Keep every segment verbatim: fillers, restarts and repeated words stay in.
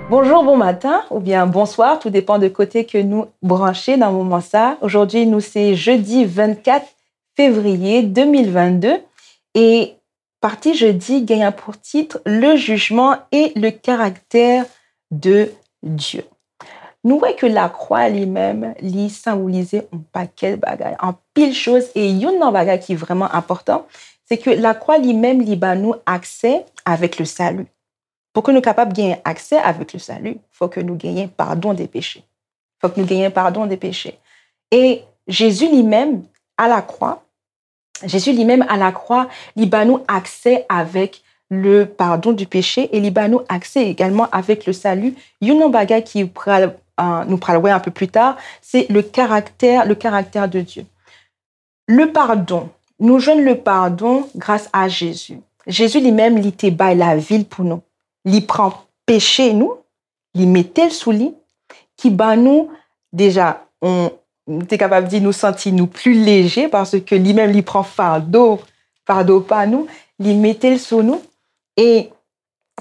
Bonjou, bon maten oubyen bonswa, tou depan de kote ke nou branche nan moman sa. Ojòdi nou se jedi vennkat fevriye de mil vennde e pati jedi genyen pou tit Le jugement et le caractère de Dieu. Nou wè ke lakwa li menm, li senbolize yon pakèt bagay, anpil choz, e youn nan bagay ki vrèman enpòtan, se ke lakwa li menm, li ba nou aksè avèk le salut. Pou ke nou kapab genyen aksè avèk le salut, fò ke nou genyen padon de peche. Fòk nou genyen padon de peche. E Jezi li menm, a la kwa, Jezi li menm a la kwa, li ba nou aksè avèk le pardon du péché e li ba nou aksè egalman avèk le salut. Youn nan bagay ki pral, euh, nou pral wè un peu plus tard, se le caractère, le caractère de Dieu. Le pardon, nou jwenn le pardon gras a Jezi. Jezi li menm, li te bay lavi l pou nou. Li pran peche nou, li mete l sou li, ki ban nou deja, on, nou te kapab di nou santi nou pli leje, paske li menm li pran fado, fado pa nou, li mete l sou nou, e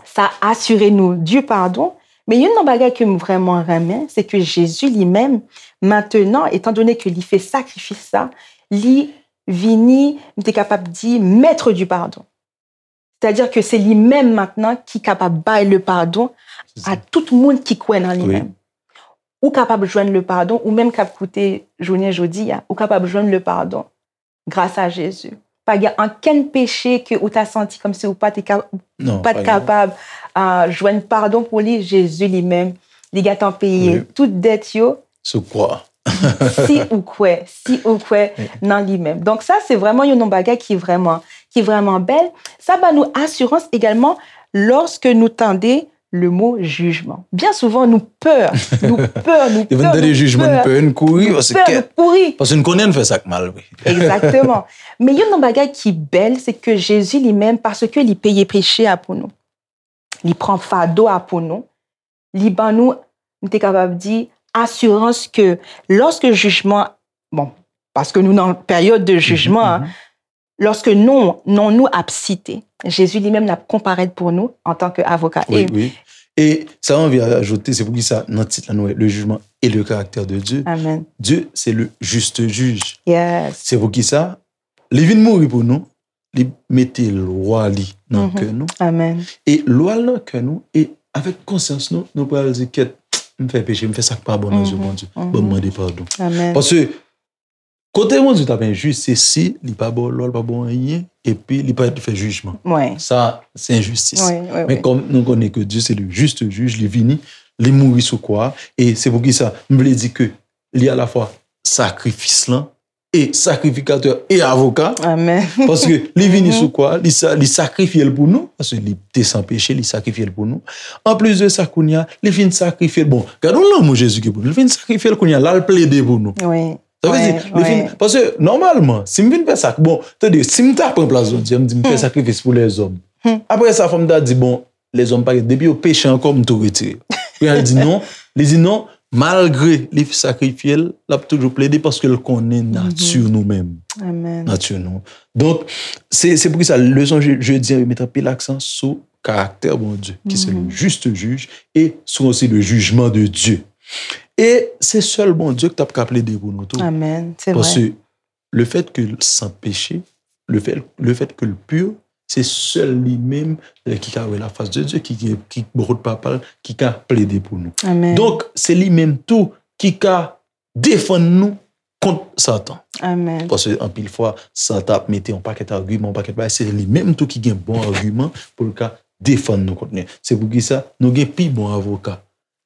sa asire nou du pardon. Men youn nan bagay ke m vrèman renmen, se ke Jezi li menm, maintenant, étant donné ke li fè sakrifis sa, li vini, m te kapab di, maître du pardon. Sètadi ke se li menm maintenant ki kapab bay le pardon a tout moun ki kwè nan li menm. Ou kapab jwenn le pardon, ou menm k ap koute jounen jodi a, ou kapab jwenn le pardon gras a Jezi. Pa gen ankenn peche ke ou ta santi kòmsi ou pa te ka, ou pa t kapab, ah, jwenn padon pou li, Jezi li menm, li gentan peye tout dèt yo. Sou kwa. Si ou kwè, si ou kwè nan li menm. Donk sa, se vrèman youn nan bagay ki vrèman, ki vrèman bèl. Sa ba nou asirans egalman lòske nou tande le mo jijman. Byen souvan, nou pè, nou pè, nou pè, nou pè, nou pè, nou kouri, paske nou kouri. Paske nou konnen n fè sa k mal, wi. Egzakteman. Men youn nan bagay ki bèl, se ke Jezi li menm, paske li peye peche a pou nou, li pran fado a pou nou, li ban nou, m te kapab di, asirans ke lòske jijman, bon, paske nou nan peryòd de jijman an, lòske non, non nou ap site, Jezi li menm l ap konparèt pou nou antanke avoka. Wi, wi. E sa m anvi ajoute, se poukisa nan tit la nou wè le jugement et le caractère de Dieu. Amen. Dieu, c'est le juste juge. Yes. Se poukisa li vin mouri pou nou, li mete lwa li nan kè nou. Amen. E lwa l nan kè nou, e avèk konsyans nou, nou pral di, kèt, m fè peche, m fè sa k pa bon nan zye Bondye. Bon, m mande padon. Amen. Paske kote Bondye t ap enjis, se si li pa ba w lwa, li pa ba w anyen, epi li pa fè jijman. Sa, se enjistis. Men kòm nou konnen ke Dieu c'est le juste juge, li vini, li mouri sou kwa a, e se poukisa m vle di ke li alafwa sakrifis lan, e sakrifikatè e avoka. Amen. Paske li vini sou kwa, li sa, li sakrifye l pou nou, paske li te san peche, li sakrifye l pou nou. Anplis de sa, kounye a, li fin sakrifye l. Bon, gade yon lanmou Jezi gen pou nou. Li fin sakrifye l, kounye a, l al plede pou nou. Wi. Sa vle di, li fin, paske nòmalman, si m vin fè sa, bon, tande, si m ta pran plas Bondye, m di m fè sakrifis pou lèzòm. Apre sa, fò m ta di, bon, lèzòm pa gen, depi yo peche ankò, m tou retire. Kounye a, li di non, li di non, malgre li sakrifye l, l ap toujou plede paske l konnen nati nou menm. Amen. Nati nou. Donk, se, se poukisa leson je, jedi an, yo met anpil aksan sou karaktè Bondye, ki se le juste juge, e sou osi le jugement de Dieu. E se sèl Bondye ki t ap ka plede pou nou tou. Amen. Se vre. Paske le fait que l san peche, le fait, le fait que l pur, se sèl li menm, eh, ki ka wè la face de Dieu, ki, ki, ki bò kot Papa l, ki ka plede pou nou. Amen. Donk, se li menm tou ki ka defann nou kont Satan. Amen. Paske anpil fwa, Satan ap mete yon pakèt agiman, yon pakèt bagay, se li menm tou ki gen bon agiman pou l ka defann nou kont li. Se poukisa nou gen pi bon avoka.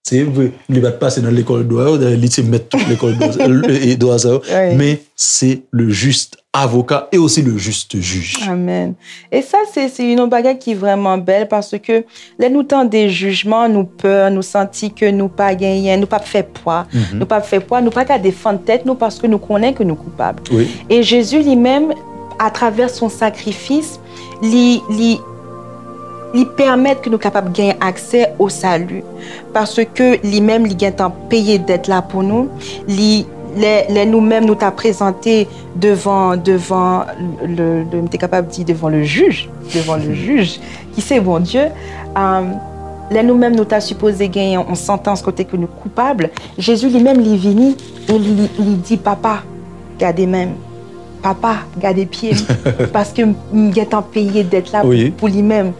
Se vre, li pa t pase nan lekòl dwa yo, dayè li se mèt tout lekòl dwa, e, e, dwa sa yo, men se le juste avocat et aussi le juste juge. Amen. E sa, se, se yon bagay ki vrèman bèl, paske lè nou tande jijman, nou pè, nou santi ke nou pa genyen, nou p ap fè pwa, nou p ap fè pwa, nou pa ka defann tèt nou paske nou konnen ke nou koupab. Wi. E Jezi li menm, atravè son sakrifis, li, li, li pèmèt ke nou kapab genyen aksè o sali. Paske li menm, li gentan peye dèt la pou nou, li, Lè, lè nou menm nou ta prezante devan, devan le, le, m te kapab di devan le jij, devan le jij, ki se Bondye, um, lè nou menm nou ta sipoze genyen yon santans kote ke nou koupab, Jezi li menm li vini e li, li di, "Papa, gade men m. Papa, gade pye m." Paske m, m gentan peye dèt la pou, pou li menm.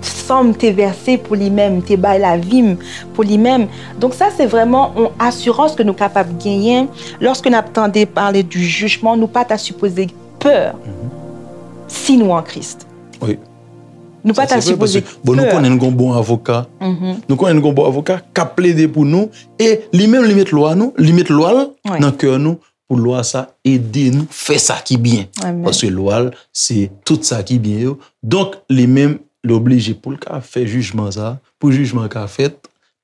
San m te vèse pou li menm, m te bay lavi m pou li menm. Donk sa se vrèman yon asirans ke nou kapab genyen lòske n ap tande pale di jijman, nou pa ta sipoze pè si nou an Kris. Wi. Nou pa ta sipoze pè. Bon, nou konnen n gon bon avoka. Nou konnen n gon bon avoka k ap plede pou nou e li menm li met lwa nou, li met lwa l nan kè nou pou lwa sa ede nou fè sa ki byen. Paske lwa l se tout sa ki byen yo. Donk li menm li oblije pou l ka fè jijman sa, pou jijman ka fèt,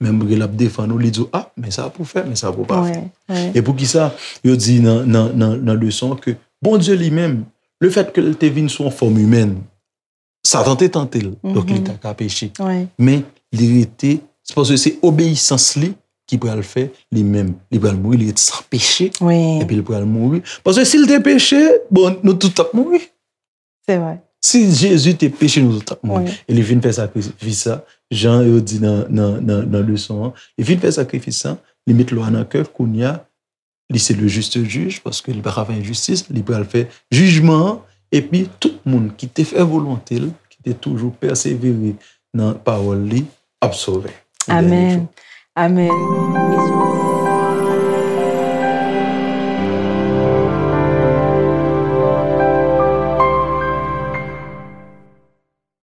menm lè l ap defann ou, li di w, "A, men sa pou fè, men sa pou pa fè." E poukisa yo di nan, nan, nan, nan leson ke Bondye li menm, lefèt ke l te vin sou yon fòm imèn, Satan te tante l, donk li ta ka peche. Men li rete, se paske se obeyisans li ki pral fè li menm, li pral mouri, li ret san peche, epi li pral mouri. Paske si l te peche, bon, nou tout t ap mouri. Se vre. Si Jezi te peche, nou tout t ap mouri. E li vin fè sakrifis sa, jan yo di nan, nan, nan, nan leson an, li vin fè sakrifis sa, li met lwa nan kè, kounye a, li se le juste juge, paske li pa ka fè enjistis, li pral fè jijman an, epi tout moun ki te fè volonte l, ki te toujou pèsevere nan pawòl li, ap sove. Amèn. Amèn.